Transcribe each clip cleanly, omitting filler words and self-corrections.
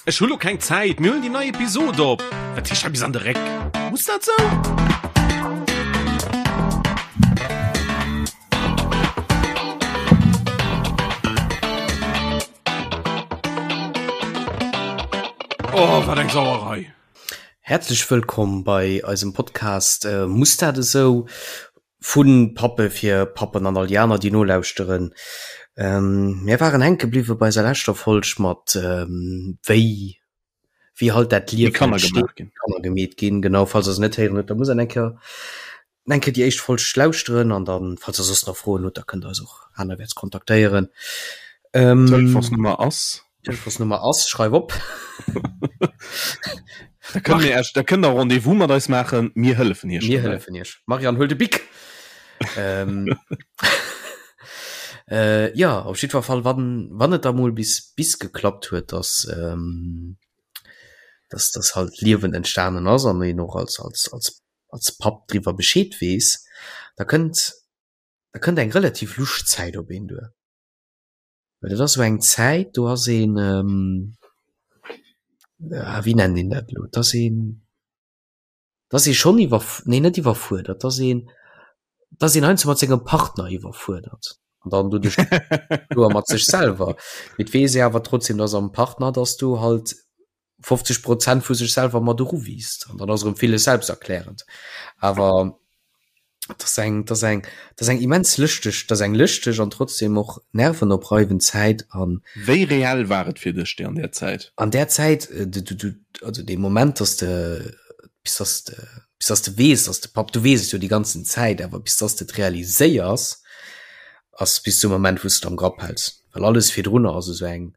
Ech hu lo keng Zäit, mir huelen déi nei Episod op. Wat heescht hei bis an de Réck? Muss dat sou? Oh, wat eng Sauerei! Häerzlech wëllkomm bei eisem Podcast Muss dat esou? Vu Pappe fir Pappen an all déi aner, déi nolauschteren. Mir waren hänke bliwwe bei eiser leschter Folg mat wéi wéi halt dat Liewen Kanner gemaach ginn. Kanner gemeet ginn. Genau, falls der se net héieren hutt, da musst der eng Kéier eng Kéier déi éischt Folg lauschteren an dann, falls der soss nach Froen hutt, da kënnt der eis och anerwäerts kontaktéieren. D'Telefonsnummer ass. D'Telefonsnummer ass, schreif op. Da kënnt mir Iech, da kënnt der Rendez-vous mat eis maachen, mir hëllefen Iech. Mir hëllefen Iech. Marianne, huel de Bic! ähm, äh, ja, op jiddwer Fall, wann, wann et da mol bis, bis geklappt huet, dass, ähm, dass das halt Liewen entstanen ass an een och als, als, als, als Papp driwwer Bescheed weess, da kënnt, da kënnt eng relativ lusch Zäit op een duer. Well dat ass esou eng Zäit, do ass een, ah wéi nennt een dat elo, et ass een, et ass ee schonn iwwer, nee net iwwerfuerdert, et ass een, et ass een heiansdo mat sengem Partner iwwerfuerdert an dann doduerch kloer mat sech selwer. Mee et weess ee awer trotzdem, dass am Partner, dass du halt 50 Prozent vu sech selwer mat eruwiisst an dann ass erëm villes selbsterklärend. Awer dat ass eng, dat ass eng, dat ass eng immens lëschteg, dat ass eng lëschteg an trotzdem och nervenopreibend Zäit an. Wéi reell war et fir dech déi an där Zäit? An där Zäit, du, du, du, also dee Moment, dass de, bis dass de, bis dass de weess, dass de Papp, du weess et jo déi ganzen Zäit, awer bis dass de et realiséiers, ass bis zum Moment, wou s de et am Grapp häls, well alles virdrunner ass esou eng,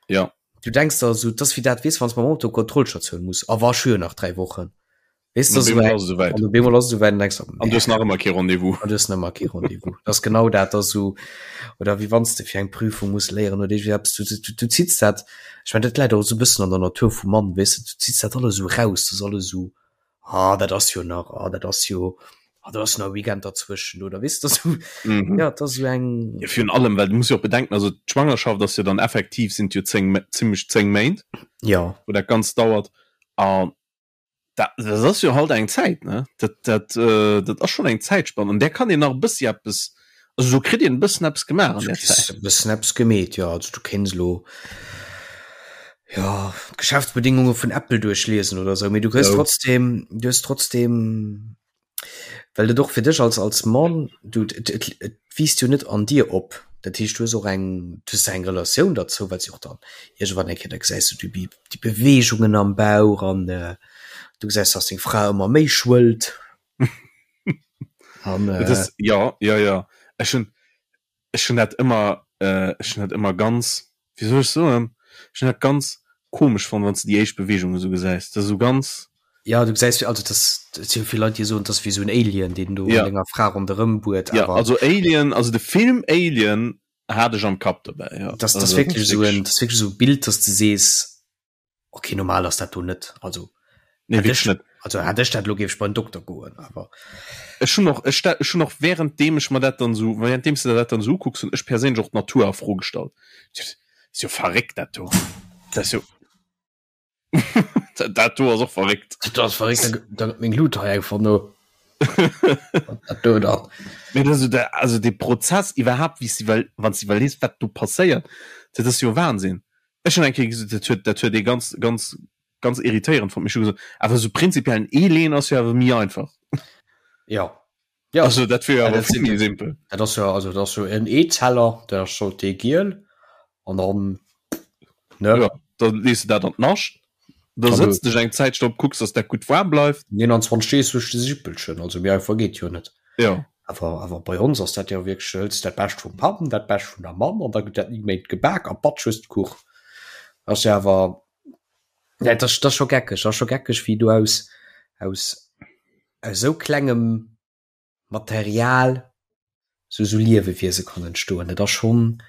Ja. Du denkst der esou, 't ass wéi dat, weess, wann s mam Auto Kontrollstatioun muss, a wa ech hu jo nach 3 Wochen, weess du, esou eng, an op eemol ass et esouwäit an denkst der, An du hues nach ëmmer kee Rendez-vous. An du hues nach ëmmer kee Rendez-vous. Dat ass genau dat, dat ass esou, oder wéi wann s de fir eng Prüfung muss léieren oder iergendwéi eppes, du, du, du zitts dat, ech mengen, dat läit och esou e bëssen an der Natur vum Mann, weess de, du zitts dat alles esou raus, dat ass alles esou, ah dat ass jo nach, ah dat ass jo, ah do ass nach e Weekend derzwëschen oder weess de, esou, Mhm. ja, dat ass esou eng. Ja, virun allem, well du muss jo och bedenken, also d'Schwangerschaft ass jo dann effektiv, sinn et jo 10, zimmlech 10 Méint, Ja. wou dat Ganzt dauert an dat, dat ass jo halt eng Zäit, ne? Dat, dat, dat ass schonn eng Zäitspann, an där kann een nach e bëssi eppes, also do kritt een e bëssen eppes gemaach an Du där kriss Zäit. e bëssen eppes gemeet, jo. Also du kéints elo, jo, d'Geschäftsbedingunge vun Apple duerchliesen oder esou, mee du kriss Sou. trotzdem, du hues trotzdem, well et och fir dech als, als Mann, du, et, et, et wiisst jo net an dir op. Dat heescht, du hues och eng, du hues eng Relatioun derzou, well s jo och dann iergendwann eng Kéier, da gesäis du déi, déi Beweegungen am Bauch an du gesäis, dass deng Fra ëmmer méi schwëllt. An, äh, das, ja, ja, ja. Ech hun, ech hun dat ëmmer, äh, ech hun dat ëmmer ganz, wéi soll ech soen, ech hun dat ganz komesch fonnt, wann s de déi éischt Beweegung esou gesäis. Dat ass esou ganz. Ja, du gesäis, also das, dat si jo vill Leit, déi soen, dat ass wéi esou en Alien, deen do Ja. an denger Fra ronderëm buert, Ja, awer also Alien, also de Film Alien hat ech am Kapp dobäi, ja. das, das Also, wierklech esou en, wirklich. das wierklech esou e Bild, dass de sees, okay, normal ass dat do net, also Nee, hätt wierklech ech, net. also hätt ech dat elo, géif ech bei den Dokter goen, awer. Ech hunn och, ech, ech hunn och währenddeem ech mer dat dann esou, währenddeem s de der dat dann esou ukucks, hunn ech perséinlech och d'Natur a Fro gestallt. Dat ass jo verréckt, dat do. Dat ass jo. Dat do ass och verréckt. Dat ass verréckt, da, da gëtt meng Lut hei einfach no. Dat do dann. Mee dat ass jo der, also dee Prozess iwwerhaapt, wéi s de iwwer, wann s de iwwerlees, wat do passéiert, dat ass jo Wahnsinn. Ech hunn eng Kéier gesot, dat huet, dat huet ee ganz, ganz, ganz irritéierend fonnt, mee ech hu gesot, awer esou prinzipiell en Ee leeën ass jo awer méi einfach. Ja. Ja. Also dat wier jo Ja, awer dat vill sinn, méi simpel. dat ass jo, also dat ass jo en Eezeller, dat ass scho dee giel an dann, ne? Ja, da lees de dat an d'Nascht, da An du sëtz dech eng Zäitchen drop, kucks, dass dat gutt waarm bleift. 29 Deeg duerch de Sippelchen, also méi einfach geet jo net. Ja. Awer, awer bei ons ass dat jo wierklech, du hëls dat Bescht vum Papp an dat Bescht vun der Mamm an da gëtt dat 9 Méint gebak a batsch hues de Kuch. Ass jo awer, ja, dat ass, dat ass scho geckeg, dat ass scho geckeg, wéi du aus, aus, aus esou klengem Material sou sou Liewewiese kann entstoen. Dat ass schonn,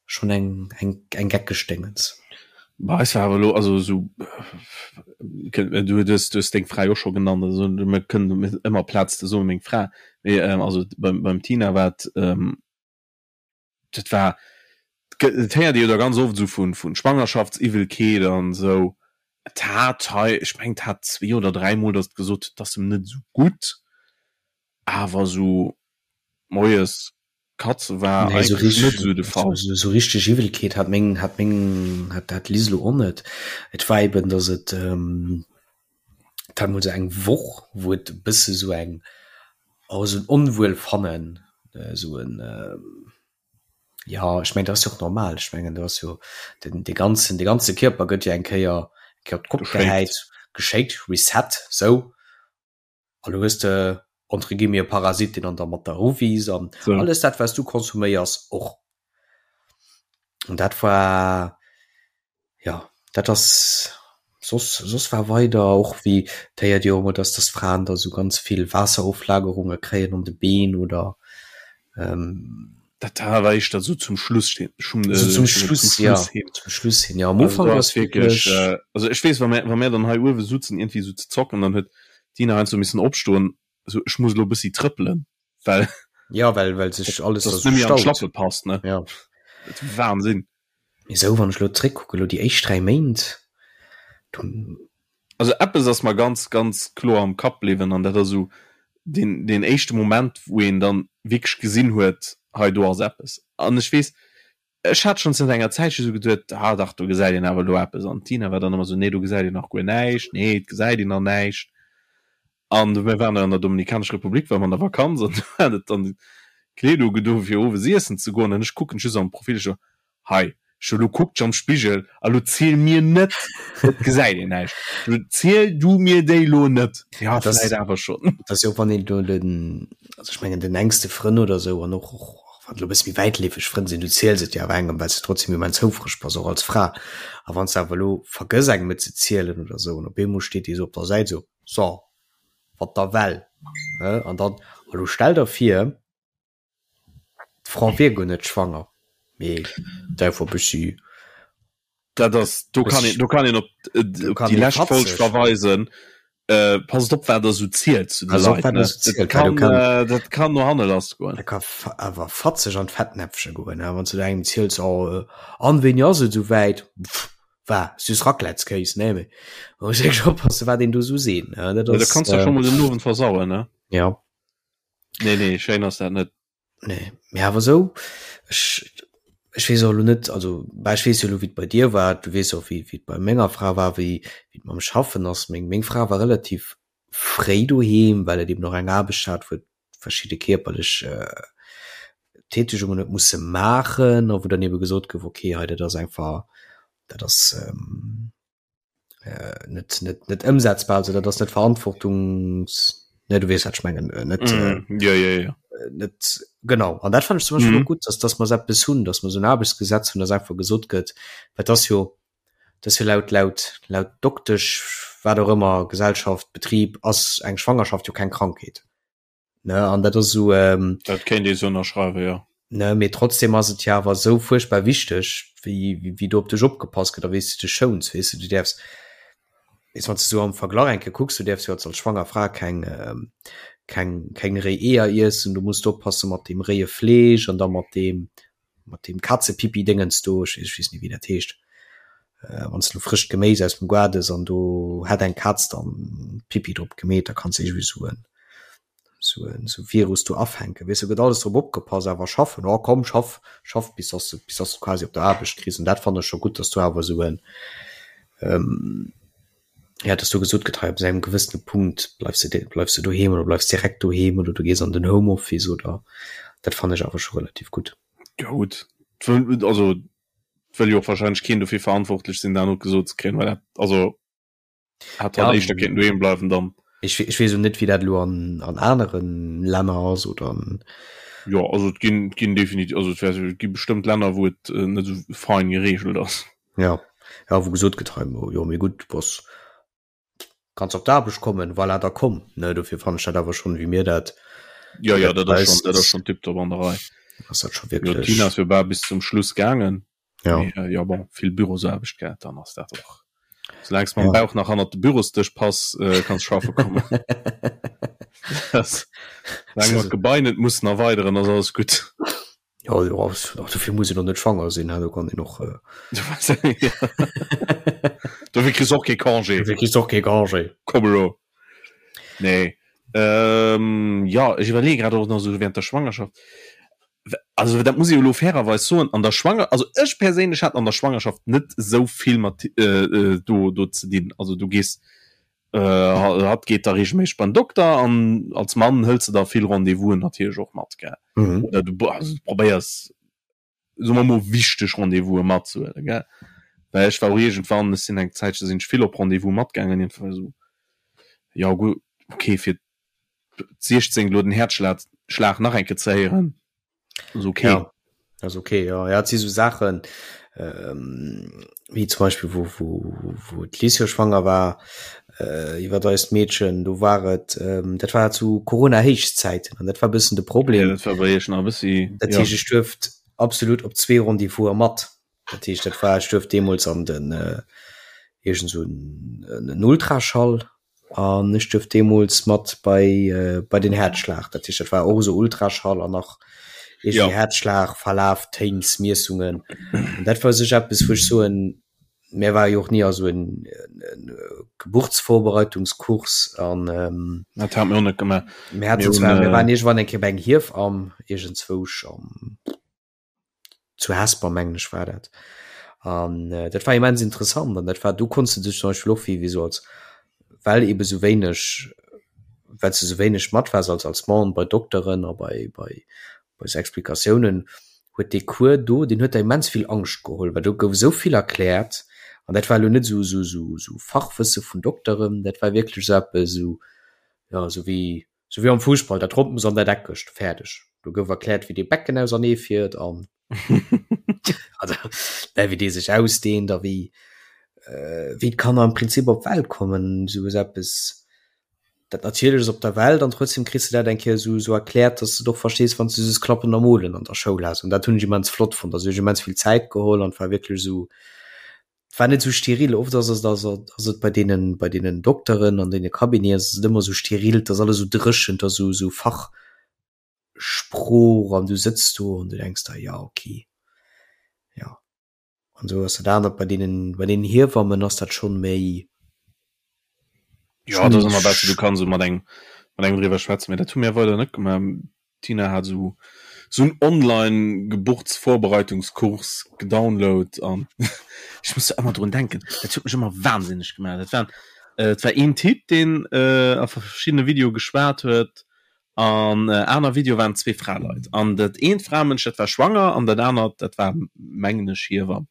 schonn eng, eng, eng geckeg Déngens. Bei eis war awer elo, also esou, du hues, du hues deng Fra jo och scho genannt, also mir kënnen ëmmer Plaz ze soen, meng Fra, mee also beim, beim Tina war et, dat war. Et héiert ee jo da ganz oft esou vun vun Schwangerschaftsiwwelkeet an esou. Et hat hei, ech mengen et hat zwee oder dräimol, datt et gesot huet, et ass em net esou gutt, awer esou moies Katze war Nee, so eigentlech richtig, net esou de Fall. so, so richtig Iwwelkeet hat meng, hat meng, hat, hat d'Liz lo och net. Et war eben, dass et, ähm, et hat mol sou eng Woch, wou et e bësse sou eng, oh, sou en Onwuelfannen, äh, sou en, ähm, ja, ech mengen, dat ass jo och normal. Ech mengen, do ass jo den, de ganzen, de ganze Kierper gëtt jo eng Kéier, eng Kéier op d'Kopp Geschéckt. gehäit, geschéckt, Reset, sou. An du hues de entre guillemets e Parasit, deen an der mat der eruwiisst an So. alles dat, wat du konsuméiers, och. An dat war, ja, dat ass soss, soss war weider och wéi, et héiert ee jo ëmmer, dass dass Fraen da sou ganz vill Waasseroflagerunge kréien an de Been oder ähm, Dat war éischter sou zum Schluss hin, schon, so äh, zum zum Schluss, ja, Schluss hin. zum Schluss hin, ja. Am Also Ufank do ass ass wierklech, wierklech, äh, also ech weess, wa mir, wa mir dann hei uewe sutzen iergendwéi sou ze zocken, dann huet d'Dina heiansdo missen opstoen, sou ech muss elo e bëssi trëppelen, well ja, well, well sech alles da dass sou net méi an staut. d'Schlappe passt, ne? Ja. Dat ass Wahnsinn. Mee sou, wann ech elo zréckkucken, elo déi éischt 3 Méint, du, Also eppes ass mer ganz, ganz kloer am Kapp bliwwen an dat ass esou deen, deen éischte Moment, wou een dann wierklech gesinn huet, hei do ass eppes. An ech weess, ech hat schonn zënter enger Zäitche esou geduet, ah dach, do gesäit een awer elo eppes. An d'Tina war dann ëmmer esou, nee, do gesäit een nach guer näischt, nee, et gesäit een nach näischt. An mir waren an der Dominikanescher Republik, ware mer an der Vakanz an do hat et dann d'Kleed ugedo fir owes iessen ze goen an ech kucken just am Profil, ech so, hei, ech so, lo kuck dech am Spigel a lo ziel mir net, et gesäit een näischt, lo ziel du mir déi lo net. Ja, Dat ass, vläit awer schonn. dat ass jo och, wann een do den, also ech mengen den enkste Frënn oder esou an och, och wann et elo e bësse méi wäitleefeg Frënn sinn, du ziels et jo awer engem, well s de trotzdem immens houfreg bass, och als Fra. A wann s de awer elo vergëss engem et ze zielen oder esou an op eemol steet dee sou op der Säit esou, So, wat da well, he? An dann, a lo stell der vir, d'Fra wier guer net schwanger, mee d'äifer bëssi. Dat ass, do kann een, do kann een op, op déi lescht Folg verweisen. Äh, passt op, wat der sou zielt zu de Leit, ne? Dat kann, dat kann no hanne lass goen. Dat ka awer fatzeg an d'Fettnäpfche goen, he? Wann s du da engem ziels, oh, an wéini ass et esou wäit? Pff, War süß Raclettskéis, nee, mee man muss wierklech oppassen, wat een do sou seet, ne? Dat ass, ja, da kanns du äh, schon mol den Owend versauen, ne? Ja. Nee, nee, schéin ass dat net. Nee, mee awer sou, ech, ech weess och elo net, also, bah, ech weess jo elo, wéi et bei dir war, du weess och, wéi, wéi et bei menger Fra war, wéi, wéi et mam Schaffen ass. Meng, meng Fra war relativ fréi doheem, well et eben och eng Aarbecht hat, wou et verschidde kierperlech Tätegungen huet musse maachen a wou dann ebe gesot gouf, okay, hei dat ass einfach, dat ass net net net ëmsetzbar, also dat ass net verantwortungs, ne du weess wat ech mengen, net mm, ja, ja, ja. net genau. An dat fand ech zum Beispill mm. gutt, dass dass mer eppes hunn, dass mer esou en Aarbechtsgesetz hunn, dass einfach gesot gëtt, well dat ass jo dat ass jo laut laut laut Doktesch, wat och ëmmer, Gesellschaft, Betrib ass eng Schwangerschaft jo keng Krankheet. Ne, an dat ass esou. Ähm, dat kéint ee sou ënnerschreiwen, jo. Ne, mee trotzdem ass et jo awer esou fuerchtbar wichteg, wéi, wéi, wéi do op dech opgepasst gëtt a wéi s du dech schouns, weess de. Du däerfs, weess, wann s de sou am Verglach eng Kéier kucks, du däerfs jo als, als schwanger Fra keng, ähm, keng, keng réi Eeër iessen, du muss oppasse mat deem réie Fleesch an da mat deem, mat deem Kazepipi-Déngens do, ech, ech weess net, wéi dat heescht, äh, wann s du frëscht Geméis aus dem Gaart ëss an do hätt eng Kaz dann Pipi drop gemeet, da kanns de iergendwéi sou en, sou en, sou Virus do afänken. Weess du, gëtt alles drop opgepasst, awer schaffen, oh komm, schaff, schaff bis dass de, bis dass de quasi op der Aarbecht kriss. An dat fannen ech scho gutt, dass do awer esou en, ähm, ja, dass do gesot gëtt, hei ab engem gewëssene Punkt bleifs de, bleifs de doheem oder bleifs direkt doheem oder du gees an den Homeoffice oder, dat fannen ech awer scho relativ gutt. Ja gutt, also wëll jo och wahrscheinlech keen dofir verantwortlech sinn, dat och gesot ze kréien, well dat, also hätt halt Ja, éischter kéinten doheem bleiwen dann. ech, ech weess och net, wéi dat elo an, an aneren Länner ass oder an, Jo, also et ginn, et ginn definitiv, also et wär, et gi bestëmmt Länner, wou et net esou fein geregelt ass. ja, ja, wou gesot gëtt, hei, jo, mee gutt, du bass, kanns op d'Aarbecht kommen, voilà, da komm, ne, dofir fannen ech dat awer schonn, wéi mir dat, Ja, wéi ja, dat dat ass bei schonn, eis dat ass ass, schonn tiptop an der Rei. ass dat scho Jo, wierklech, d'Tina ass jo bal bis zum Schluss gaangen. ja. Mee, äh, ja, bon, vill Bürosaarbecht gehat, dann ass dat och. Soulaang s mam Ja. Bauch nach hannert de Bürosdësch pass, äh, kanns schaffe kommen. Das, soulaang mer d'Gebai net mussen erweideren, ass alles gutt. Ja, jo, och dofir muss een och net schwanger sinn, do kann een och. Äh... Dofir kriss och kee Congé. Dofir kriss och kee Congé. Komm elo. Nee. Ähm, ja, ech iwwerleeë grad och nach esou während der Schwangerschaft. Also dat muss ech jo elo fairerweis soen, an der Schwanger, also ech perséinlech hat an der Schwangerschaft net esou vill mat äh, äh, do, do ze dinn. Also du gees äh, hatt geet da regelméisseg beim Dokter an als Mann hëls de da vill Rendez-vousen natierlech och mat, gell. Mhm. Oder du, also, du probéiers soe mer mol wichteg Rendez-vouse matzehuelen, gell. Well ech war och iergendwann, ech sinn eng Zäitche sinn ech vill op Rendez-vous matgaangen, iergendwann esou, jo gutt, okay, fir d'16 elo den Häerzschlag Schlag nach eng Kéier ze héieren, ass okay. Ja, ass okay, ja. Ja, et si sou Saachen, ähm, wéi zum Beispill wou, wou, wou d'Liz jo schwanger war, äh, iwwer eist Meedchen, do war et, ähm, dat war zu Corona-Héichzäiten an dat war e bëssen de Problem. Ja, dat war bei iech nach e bëssi, Dat heescht, ech duerft absolut op zwee Rendez-vouse mat. Dat heescht, dat war, ech duerft deemools an den, äh, iergend sou en, en Ultraschall An ech duerft deemools mat bei, bei den Häerzschlag. Dat heescht, dat war och esou Ultraschall an nach iergendwéi Häerzschlag, Verlaf, Téinsmiessungen. An dat war u sech eppes, wou ech soen, mir ware jo och ni a sou en Geburtsvorbereitungskurs an. Dat hate mir och net gemaach. Mir haten zwar, mir waren iergendwann eng Kéier bei eng Hiefamm iergendzwousch am. zu Hesper mengen ech war dat an äh, dat war immens interessant an dat war du konntest du dech zum Beispiel och wéi wéi so als well eben sou wéineg well du sou wéineg mat wars als als Mann bei Dokteren a bei bei bei sou Explikatiounen huet dee Cours do deen huet der immens vill Angscht geholl well do gouf esou vill erkläert an dat war elo net sou sou sou sou Fachwësse vun Dokteren dat war wierklech sou eppes sou ja sou wéi Sou wéi am Fussball, dat Ronnt muss an dat Eckegt, fäerdeg. Do gouf erkläert, wéi dee Becken ausernee fiert an also, ne, wéi dee sech ausdehnt a wéi, wéi d'Kanner am Prinzip op d'Welt kommen, sou ass eppes, dat Natierleches op der Welt an trotzdem kriss de dat eng Kéier sou, sou erkläert, dass de et och verstees, wann s de just Klappen a Molen an der Schoul has. An dat hunn ech immens flott fonnt. Also, hu ech immens vill Zäit geholl an et war wierklech esou, Et war net esou steril. Oft ass et ass ass et bei deenen bei deenen Dokteren an deene Cabineten ass et ëmmer esou steril, et ass alles esou dréchen, et ass esou esou Fachsprooch an du sëtz do an du denks der, jo okay, jo. An esou ass dat anert bei deenen bei deenen Hiewammen ass dat schonn méi. Jo, dat ass ëmmer besser, du kanns esou mat engem mat engem driwwer schwätzen, mee dat hu mir weider net gemaach. D'Tina hat esou esou en online Geburtsvorbereitungskurs gedownload an ech muss do ëmmer drun denken, dat huet mech ëmmer wahnsinneg gemaach. Dat war et war een Typ deen a verschiddene Videoe geschwat huet an aner Videoe waren zwee Fraleit an dat eent Framënsch dat war schwanger an dat anert dat war mengen ech Hiewamm.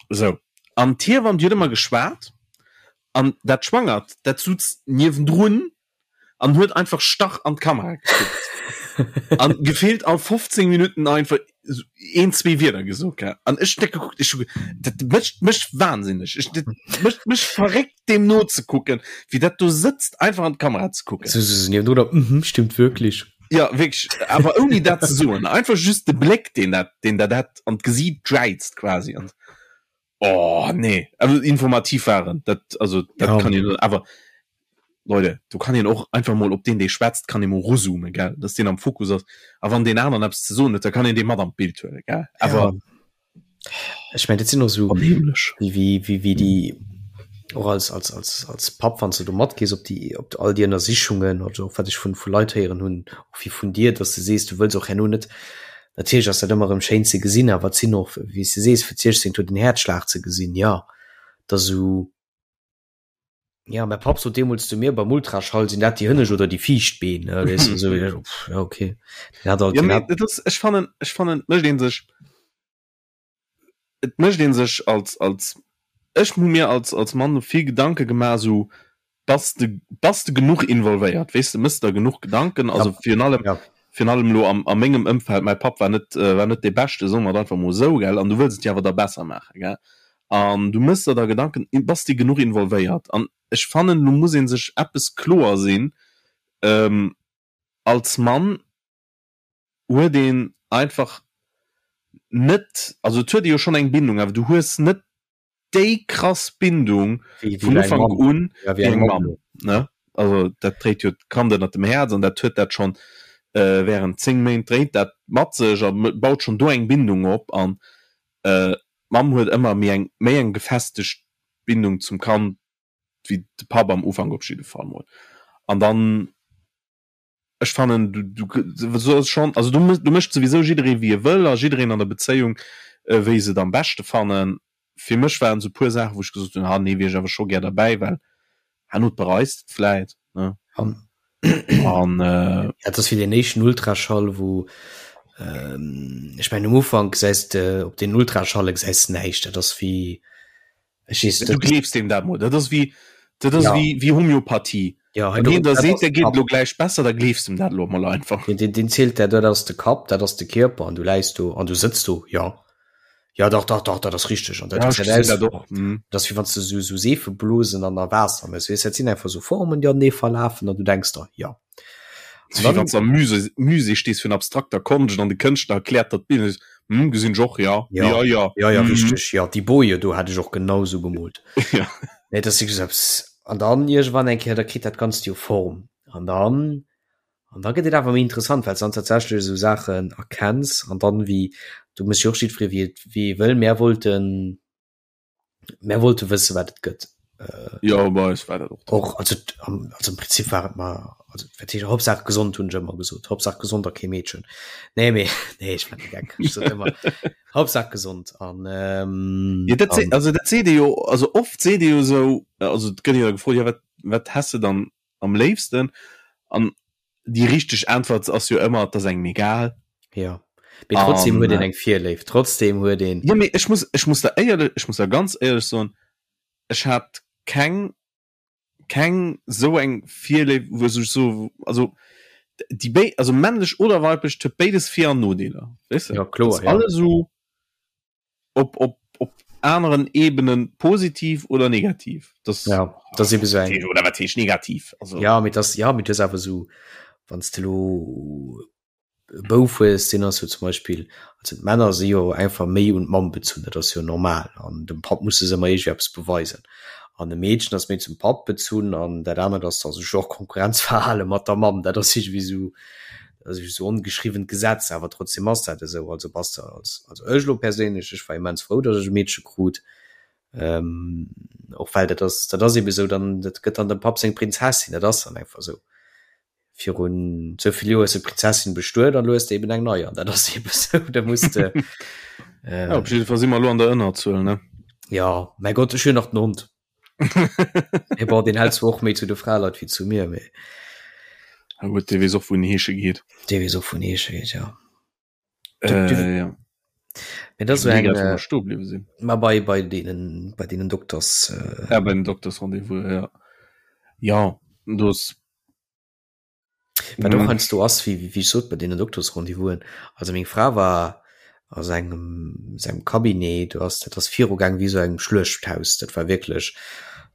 Sou, an d'Hiewamm déi huet ëmmer geschwat an dat Schwangert dat sutz niewendrun an huet einfach starr an d'Kamera gekuckt an gefillt all 15 Minuten einfach een zwee Wierder gesot gell an ech hunn dat gekuckt ech hu dat mécht mech wahnsinneg ech dat mécht mech verréckt deem nozekucken wéi dat do sëtzt einfach an d'Kamera ze kucken. So, so, so, niewendrun, mhm, stimmt wirklich. Ja wierklech awer ouni dat ze soen einfach just de Bléck deen dat deen dat dat an d'Gesiit jäizt quasi an Oh nee, also informativ waren dat also dat ja. kann een awer Leute, du kann een och einfach mol op den dee schwätzt kann ee mol ruzoomen gell, dass deen am Fokus ass a wann deen aneren eppes ze soen huet, da kann een dee mat an d'Bild huele gell awer ja. Ech mein dat sinn och sou wéi wéi wéi wéi déi och als als als als Papp wann s de do matgees op déi op all déi Ënnersichungen also och wat ech vun vu Leit héieren hunn och wéi vun dir, dass de sees du wëlls och herno net Natierlech ass dat ëmmer erëm schéin ze gesinn, awer et sinn och, wéi s de sees, fir d'Siechzéngt huet en Häerzschlag ze gesinn, jo, et ass esou, jo, mäi Papp sot deemools zu mir beim Ultraschall, sinn dat déi hënnescht oder déi viischt Been, ne, weess de, esou, jo, okay, deen hat alt, deen hat. Et ass, ech fannen, ech fannen, et mécht ee sech, et mécht ee sech als, als, ech hu mir als, als Mann vill Gedanke gemaach, esou, Bass de, bass de genuch involvéiert, weess de, mëss der genuch Gedanken, also ja. virun allem, ja. virun allem lo am, a mengem Ëmfeld, mäi Papp war net, äh, war net dee Beschte, soe mer et einfach mol esou, gell, an du wëlls et jo awer da besser maachen, gell, an du mëss der da Gedanken, bass de genuch involvéiert? An ech fannen, lo muss ee sech eppes kloer sinn, ähm, als Mann huet een einfach net, also et huet ee jo schonn eng Bindung, awer du hues net déi krass Bindung vun Ufank un wéi eng Mamm, ne? Also dat dréit jo d'Kand ënnert dem Häerz an dat huet dat schonn. Während 10 Méint dréit dat mat sech a baut schonn do eng Bindung op an d'Mamm huet ëmmer méi eng méi eng gefestegt Bindung zum Kand wéi de Papp am Ufank op jidde Fall mol. An dann, ech fannen du du soss schonn, also do do mécht souwisou jidderee wéi e wëll a jiddereen an der Bezéiung wéi se et am beschte fannen. Fir mech waren esou puer Saachen wou ech gesot hunn, ha nee wier ech awer scho gär derbäi, well herno bereis de et vläit ne. An An äh, ja, dat ass wéi den éischten Ultraschall, wou ähm, ech mengen um Ufank gesäis de op den Ultraschalle gesäis de näischt, dat ass wéi ech weess du gleefs deem dat mol, dat ass wéi dat ass Ja. wéi wéi Homöopathie. ja, Wann hien der dat seet, ass der de geet Kapp. elo gläich besser, da gleefs dem dat elo mol einfach. Den, den, den zielt der, dat ass de Kapp, dat ass de Kierper an du läis do an du sëtz do, ja. Ja dach dach dach, dat ass richteg an dat Ja, ech gesäit gesinn aus dat och. Mhm. dat ass wéi wann s de sou sou Seefeblosen an a Waasser méchs, weess, dat sinn einfach sou Formen, déi anenee verlafen an du denks der, ja. Wéi wann s de am Musée, Musée stees vun abstrakter Konscht an de Kënschtler erkläert der d'Bild an du sees, Hm, gesinn ech och, ja. Ja, Ja, ja. ja, ja, Mhm. richteg, ja, déi Boje do hat ech och genau sou gemoolt. Ja. Nee, dat ass wierklech esou eppes. An dann iergendwann eng Kéier, da kritt dat Ganzt jo Form an dann An da gëtt et awer méi interessant, well s dann tatsächlech esou Saachen erkenns an dann wéi, do muss jo och jiddweree wéi et wéi e wëll. Mär wollten, mär wollte wësse wat et gëtt. Jo, bei eis war dat och de Och also am also am Prinzip war et mer also wat heescht Hauptsaach gesond hunn ech ëmmer gesot, Hauptsaach gesond a kee Meedchen. Nee mee nee ech war de Geck, ech sot ëmmer Hauptsaach gesond an ähm, Jo, dat an also dat seet ee jo, also oft seet ee jo esou, also et gëtt jo da gefrot, jo wat wat häss de dann am léifsten? An déi richteg Äntwert ass jo ëmmer, et ass engem egal. Ja. Mee trotzdem An, huet een eng Virléift, trotzdem huet een. Jo, mee ech muss, ech muss der éierlech, ech muss der ganz éierlech soen, ech hat keng, keng esou eng Virléift, wou ech so, also déi béi, also männlech oder weiblech, et huet béides Vir an Nodeeler, weess de? Ja, kloer, Et ass ja. alles esou op, op, op aneren Ebenen positiv oder negativ. Das, ja, das eben so eng. Oder wat heescht negativ? Also. Ja, mit das, ja, mit das awer so, wann du lo e Bouf hues, deen ass jo zum Beispill, also d'Männer si jo einfach méi un d'Mamm bezunn, dat ass jo normal, an dem Papp muss se ëmmer iergendwéi eppes beweisen. An e Meedchen ass méi zum Papp bezunn an dat anert ass da sech och Konkurrenzverhale mat der Mamm, dat ass iergendwéi sou, dat ass esou ongeschriwwent Gesetz, awer trotzdem ass dat esou. Also bass de als, also ech elo perséinlech, ech war immens frou, datt ech e Meedche krut, och well dat ass, dat ass ebe sou, dann, dat gëtt dann dem Papp seng Prinzessin, dat ass dann einfach esou. Virun esou vill Joer hues de d'Prinzessin bestuet an elo hues de eben eng nei an dat ass ebe sou, da muss de. Ja, op jidde Fall si mer elo an der Ënnerzuel, ne? Ja, mäi Gott, ech hunn nach den Hond. Mee bon, deen hält zwar och méi zu de Fraleit wéi zu mir, mee. Ja gutt, dee weess och wou en heesche geet. Dee weess och wou en heesche geet, ja. Äh, ja. Mee dat ass esou eng. Wou mer stoe bliwwe sinn. Ma bei, bei deenen, bei deenen Dokters. Äh. Ja, bei den Doktersrendez-vous, ja. Ja, do ass. Wat och heiansdo ass, wéi wéi ech sot, bei deenen Doktersrendez-vousen, also meng Fra war a sengem sengem Cabinet, do ass dat ass virugaang wéi esou engem Schluechthaus, dat war wierklech,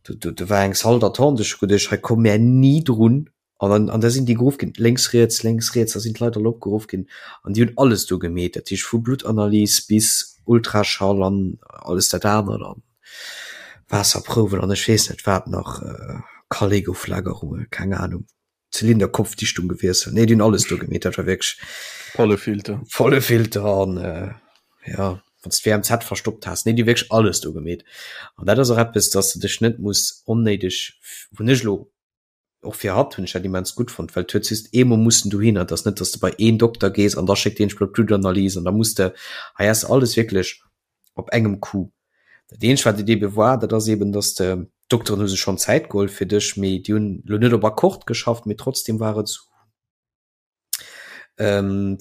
do do do war eng Salle d'attente, ech hu geduecht, hei komme mär ni drun an an an da sinn déi geruff ginn, lénks, riets, lénks, riets, da sinn d'Leit all opgeruff ginn an déi hunn alles do gemeet, dat heescht vu Bluttanalys bis Ultraschall an alles dat anert an Waasserprouwen an ech weess net wat nach, Kallegoflagerunge, keng Ahnung. Zylinderkopfdichtung gewiesselt. Nee, déi hunn alles do gemeet, dat war wierklech. Volle Filter. Volle Filter an äh, ja, wann s d'WMZ verstoppt has. Nee, déi hu wierklech alles do gemeet. An dat ass och eppes, dass de dech net muss onnéideg, hunn ech elo och fir hatt hunn ech dat immens gutt fonnt, well du hues just eemol mussen dohinner. Et ass net, dass de bei een Dokter gees an da schéckt deen dech bei d'Bluttanalyse an da muss de, hei has de alles wierklech op engem Coup. Dat eenzegt wat et ebe war, dat ass eben, datt de d'Dokteren hu sech schonn Zäit geholl fir dech, mee déi hunn elo net op Akkord geschafft, mee trotzdem war et esou,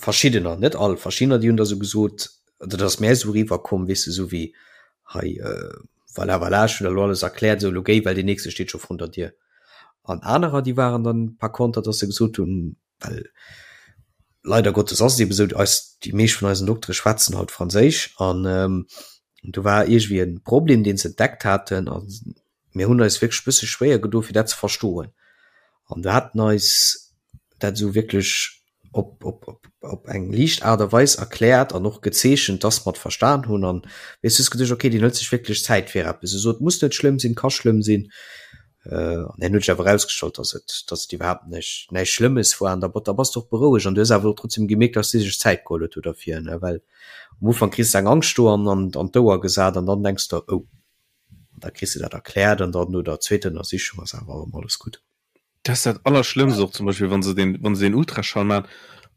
verschiddener, net all, verschiddener déi hunn da sou gesot, oder dat ass mär esou eriwwer komm, weess de, esou wéi hei, voilà, voilà, ech hunn der elo alles erkläert, esou elo géi, well deen nächste steet scho vrun der Dier. An anerer déi waren dann par konter, datt se gesot hunn, well leider Gottes ass et eben esou, eis, déi meescht vun eisen Doktere schwätzen halt Franséisch an ähm, do war iergendwéi e Problem, deen se entdeckt haten a mir hunn eis wierklech e bësse schwéier gedo fir dat ze verstoen. An do haten eis dat esou wierklech op, op, op, op eng liicht Aart a Weis erkläert an och gezeechent, dass mer et verstan hunn an weess du hues geduecht, okay, deen hëlt sech wierklech Zäit fir eppes. Esou, et muss net schlëmm sinn, ka schlëmm sinn. An herno huet sech awer erausgestallt, dass et, dass et iwwerhaapt näischt, näischt Schlëmmes war. An da, da bass de och berouegt an du hues awer och trotzdem gemierkt, dass si sech Zäit geholl huet do derfir, ne, well am Ufank kriss de eng Angscht do an, an, an d'Ouer gesat an dann denks de, oh, an da kriss de dat erkläert an dann no der zweeter Ënnersichung ass awer erëm alles gutt. Dat ass dat Allerschlëmmst och zum Beispill, wa se deen, wa se deen Ultraschall maachen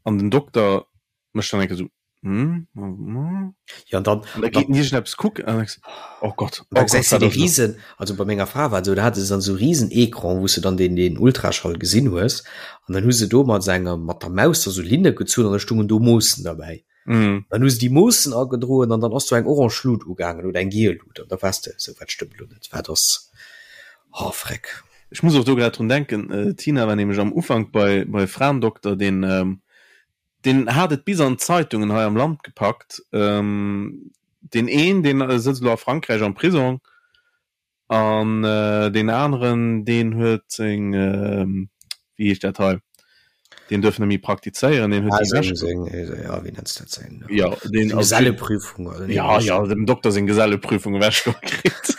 an den Dokter mécht dann eng Kéier esou, hm, hm, Ja, an dann, an da geet en iergendeppes kucken an dann denkst de, oh Gott, oh Gott, gesäis du wat dee ass elo? Riesen, also bei menger Fra war et esou, da hat se dann esou riesen Ecran, wou s de dann deen, deen Ultraschall gesinn hues an dann hu se do mat engem, mat der Maus da sou Linne gezunn an da stungen do Moossen derbäi. Mhm. Dann hu se déi Moossen agedroen an dann ass do eng orange Lut ugaangen oder eng giel Lut an da waars de esou, wat stëmmt elo net, wat ass, oh freck. Ech muss och do grad drun denken, d'Tina war nämlech am Ufank bei, bei Fraendokter, deen, deen hat et bis an d'Zeitungen hei am Land gepackt. Deen een, deen sëtzt elo a Frankräich am Prisong an deen aneren, deen huet seng, wéi heescht dat hei, deen duerf net méi praktizéieren, deen huet déi ewech. Seng, ja, wéi nenns de dat, seng, jo, deen, seng Geselleprüfung oder jo, jo, dem Dokter seng Geselleprüfung ewechgeholl kritt,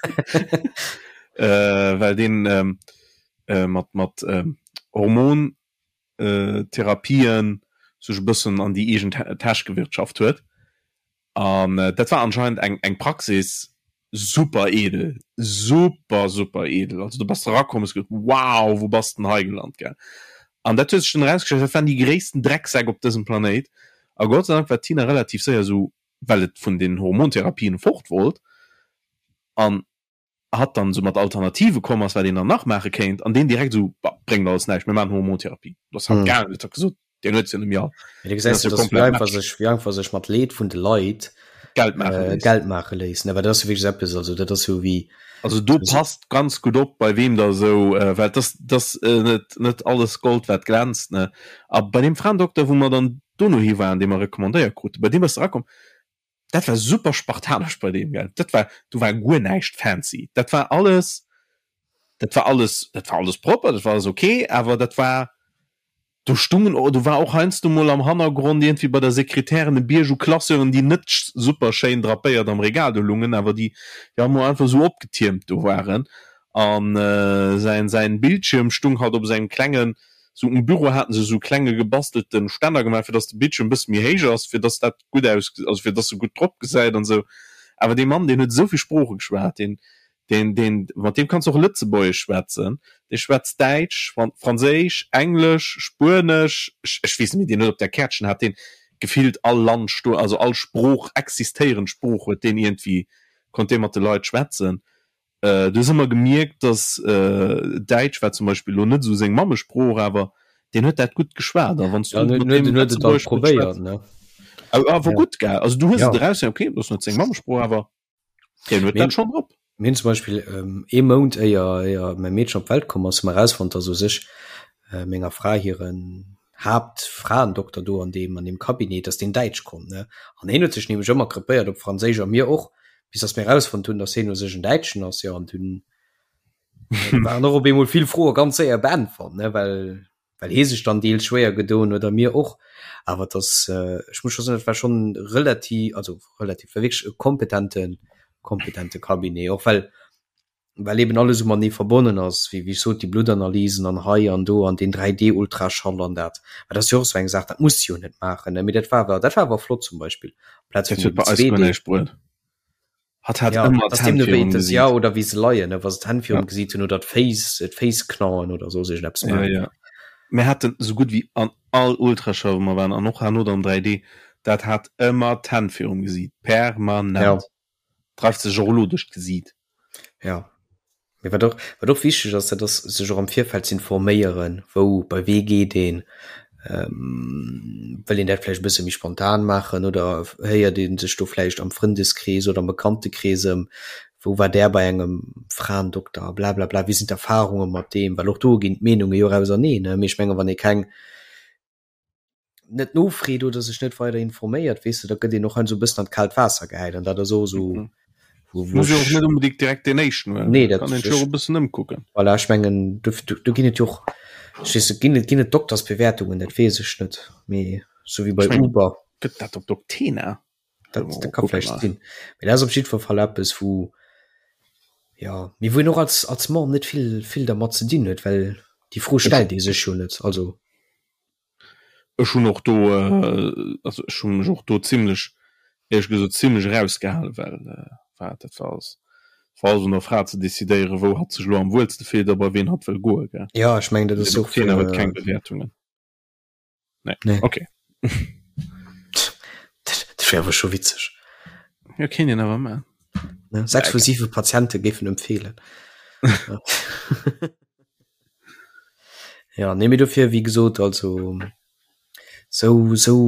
well deen mat, mat Hormon Therapien sech e bëssen an déi eegen Täsch gewirtschaft huet. An dat war anscheinend eng eng Praxis super edel, super super edel. Also du bass erakomm, hues geduet, wow, wou bass de denn hei gelant, gell? An dat huet sech dunn erausgestallt, dat waren déi gréissten Drecksäck op dësem Planéit. A Gott sei Dank war d'Tina relativ séier esou, well et vun den Hormontherapien fort wollt an hatt dann esou mat Alternative komm ass, wat een dann nach maache kéint, an deen direkt esou, Bah, bréngt alles näischt, mir maachen Hormontherapie. Do ass hatt gaangen, huet hatt gesot, deen huet se jo net méi all. Mee du gesäis jo, dass wéi einfach sech, wéi einfach sech mat Leed vun de Leit Geld maache léisst. Geld maache léisst, ne? Well dat ass jo wierklech eppes, also dat ass jo wéi. Also do passt ganz gutt op, bei weem der esou, well et ass, et ass net, net alles Gold, wat glänzt, ne? A bei deem Fraendokter, wou mer dann dono hi waren, dee mer recommandéiert kruten, bei deem bass de erakomm, Dat war super spartanesch bei deem, gell. Dat war, do war guer näischt fancy. Dat war alles, dat war alles, dat war alles propper, dat war alles ok, awer dat war, do stungen, do war och heiansdo mol am Hannergrond iergendwéi bei der Sekretärin e Bierg u Classeuren, déi net super schéin drapéiert am Regal do lungen, awer déi, déi emol einfach esou opgetiermt do waren. An säin, säin Bildschierm stung halt op esou engem klengen, sou um Büro haten se esou klenge gebastelten Stänner gemaach, fir dass de Bildschierm e bësse méi héich ass, fir dass dat gutt aus, also fir dass e gutt drop gesäit an esou. Awer dee Mann, deen huet esou vill Sprooche geschwat, deen, deen, deen, mat deem kanns de och Lëtzebuergesch schwätzen, dee schwätzt Däitsch, Franséisch, Englesch, Spuenesch, ech, ech weess net méi, deen huet op där Käertchen hat deen gefillt all Land stoen, also all Sprooch, existéierend Sprooch huet deen iergendwéi, konnt dee mat de Leit schwätzen. Du hues ëmmer gemierkt, dass Däitsch war zum Beispill elo net esou seng Mammesprooch, awer deen huet dat gutt geschwat. A wann s du mat deem Lëtzebuergesch gutt schwätz, awer gutt, gell? Also du hues et eraus, okay, dat ass net seng Mammesprooch, awer deen huet dat schonn drop. Mir hunn zum Beispill ee Mount éier éier mäi Meedchen op d'Welt komm ass, hu mer erausfonnt, dass u sech menger Fra hiren Haaptfraendokter do an deem an deem Cabinet, dass deen Däitsch konnt, ne? An hien huet sech nämlech ëmmer krepéiert op Franséisch a mir och, bis dass mir erausfonnt hunn, dass hien u sech en Däitschen ass, jo, an dunn waren och op eemol vill Froe ganz séier beäntwert, ne, well well hie sech dann deels schwéier gedoen huet a mir och. Awer et ass, ech muss scho soen, et war schonn relativ, also relativ, war wierklech e kompetente kompetente Cabinet, och well well eben alles esou matenee verbonnen ass, wéi wéi ech sot, déi Bluttanalysen an hei an do an deen 3D-Ultraschall an dat. Mä dat ass jo och esou eng Saach, dat muss de jo net maachen, ne? Mee dat war awer, dat war awer flott zum Beispill, amplaz vun deem 2D. Hatt hat Ja, ëmmer dass d'Hänn deemno wéi virum das, ja, Gesiit. oder wéi se leien, ne, wa se d'Hänn Ja. virum Gesiit hunn oder d'Féiss, d'Féiss knaen oder soss iergendeppes Ja, maachen. ja. Mir haten esou gutt wéi an all Ultraschall, wou mer waren, an och herno dann 3D, dat hat ëmmer d'Hänn virum Gesiit, permanent. Ja. Dreift sech och elo duerch d'Gesiit. Ja. Mee wat och, wat och wichteg ass, dat ass sech och am Virfeld ze informéieren, wou, bei wee geet een, wëll een dat vläicht e bësse méi spontan maachen oder héiert ee sech do vläicht am Frëndeskrees oder am Bekanntekrees ëm, wou war där bei engem Fraendokter, blablabla, wéi sinn d'Erfarunge mat deem, well och do ginn d'Meenunge jo och auserneen, ne. Mee ech menge wann ee keng net nofreet oder sech net weider informéiert, weess de, da gëtt een och heiansdo e bëssen an d'kaalt Waasser gehäit an dat ass och esou, Mhm. wou, wou Muss jo och ech net unbedingt direkt deen éischten huelen, Nee, dat kann een sech och e bëssen ëmkucken. Voilà, ech mengen, do, do, do ginn et jo och, ech weess net, ginn et, ginn et Doktersbewertungen, dat weess ech net, mee sou wéi bei Ech mengen, Uber. gëtt dat op Doctena? Dat, dat ka vläicht sinn. Mee dat ass op jiddwer Fall eppes, wou. Ja, mee wou een och als, als Mann net vill, vill dermat ze dinn huet, well déi Fro stellt ee sech jo net. Also. Ech hunn och do, also ech hu mech och do zimlech, éierlech gesot, zimlech erausgehalen, well war dat war alles, war alles un der Fra ze decidéieren, wou hatt sech elo am wuelste fillt a bei ween hatt wëll goen, gell. Ja, ech mengen, dat ass och. Thema huet keng Bewäertungen. Nee. Nee. Okay. Dat wär awer scho witzeg. Ja, kéint een awer maachen. Ne? Sechs vu siwe Patiente géifen empfehlen. Ja, nee, mee dofir, wéi gesot, also sou, sou,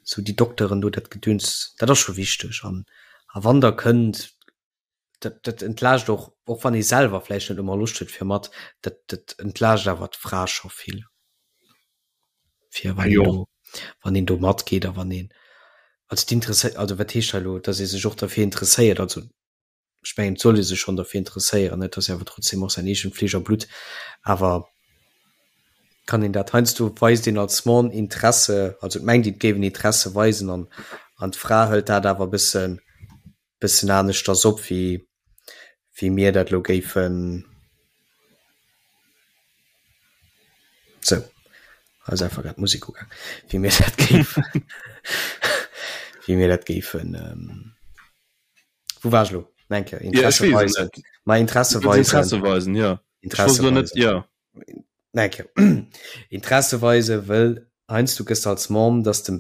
sou déi Dokteren do, dat Gedöns, dat ass scho wichteg. An, a wann der kënnt, dat, dat entlaascht och, och wann ee selwer vläicht net ëmmer Loscht huet fir mat, dat, dat entlaascht awer d'Fra scho vill. Fir wann een do, wann een do matgeet a wann een, also d'Interesse, also wat heescht hei elo, datt ee sech och derfir interesséiert, also ech mengen et soll ee sech schonn derfir interesséieren, et ass jo awer trotzdem och säin eegent Fleesch a Blutt, awer kann een dat heiansdo weist een als Mann Interesse, also et mengt een et géif een Interesse weisen an an d'Fra hëlt dat awer e bëssen bëssen aneschters op wéi wéi mir dat elo géifen. Sou, hei ass einfach grad d'Musek ugaang, wéi mir dat géifen wéi mir dat géifen. Wou war ech elo? Nach eng Kéier, Interesse ja, weisen. Ma Interesse weisen. Interesse weisen, ja. Interesse weisen. Net, ja. Nach eng Kéier. Interesse weisen, wëll heiansdo gëss de als Mom, dass de,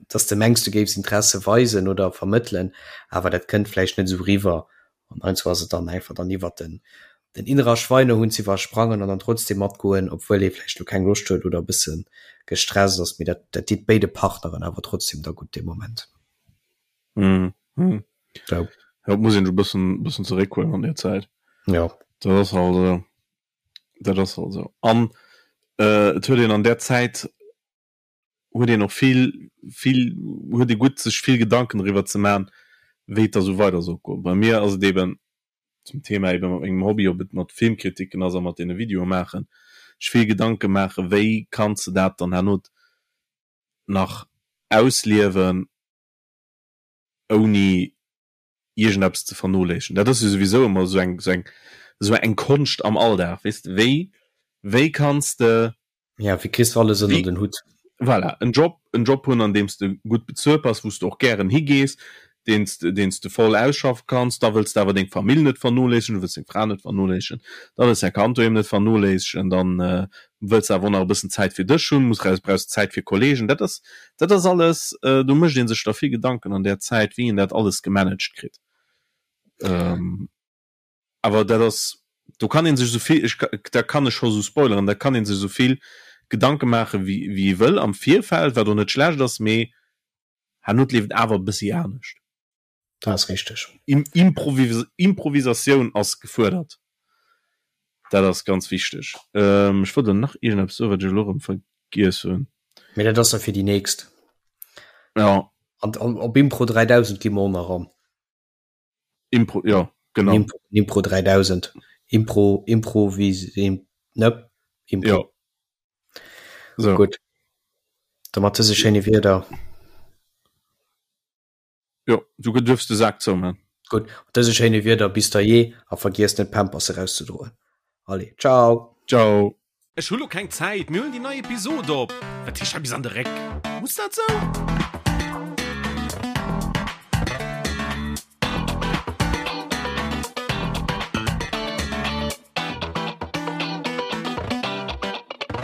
dass de mengs, du géifs Interesse weisen oder vermëttelen, awer dat kënnt vläicht net esou riwwer. An heiansdo ass et dann einfach dann iwwert den, den innerer Schweinehund ze iwwersprangen an dann trotzdem matgoen, obwuel ee vläicht elo keng Loscht huet oder e bësse gestresst ass. Mee dat, dat deet béide Partneren awer trotzdem da gutt dee Moment. Mm -hmm. Ja. Ja, muss een e bëssen bëssen zeréckhuelen an der Zäit. Ja. Dat ass halt esou. Dat ass halt esou. An äh, et huet een an der Zäit huet een och vill vill huet ee gutt sech vill Gedanken driwwer ze man, wéi et da sou weider soll goen. Bei mir ass et eben zum Thema eben mat mengem Hobby, ob et mat Filmkritiken ass a mat deene Videoe maachen, sech vill Gedanke maachen, wéi kanns de dat dann herno nach ausliewen, ouni iergendeppes ze vernoléissegen. Dat ass jo souwisou ëmmer esou eng, esou eng, esou eng Konscht am Alldag, weess de, wéi, wéi kanns de. Ja, wéi kriss de alles ënner den Hutt? Voilà, en Job, en Job hunn, an deem s de gutt bezuelt bass, wou s de och gären higees, deen s de, deen s de voll ausschaffe kanns. Da wëlls de awer deng Famill net vernoléissegen, du wëlls deng Fra net vernoléissegen, da wëlls däi Kand doheem net vernoléissegen, dann wëlls awer och nach e bëssen Zäit fir dech hunn, muss raus, brauchs Zäit fir Kollegen. Dat ass, dat ass alles, do mécht ee sech da vill Gedanken an där Zäit, wéi een dat alles gemanagt kritt. Awer dat ass, do kann ee sech esou vill, ech, da kann ech scho sou spoileren, da kann ee sech esou vill Gedanke maachen, wéi, wéi ee wëll am Virfeld, wat och net schlecht ass, mee herno leeft et awer e bëssi anescht. Dat ass richteg. Improvisatioun ass gefuerdert. Dat ass ganz wichteg. Ech wollt elo nach iergendeppes soen, wat ech elo erëm vergiess hunn. Mee dat ass da fir déi nächst. Ja. An op Impro 3000 gi mer och nach an. Impro, jo, genau. Impro, Impro 3000. Impro, Improvis, ne? Impro. Jo. So. Gutt. Da mat dëse schéine Wierder. Jo, du duerfs de Sak zouman. Gutt, mat dëse schéine Wierder bis da jee a vergiesst net d'Pampers erauszedroen. Allez, ciao! Ciao! Ech hu lo keng Zäit, mir huelen déi nei Episod op. Wat heescht hei bis an de Réck? Muss dat sou?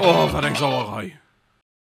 Oh, wat eng Sauerei!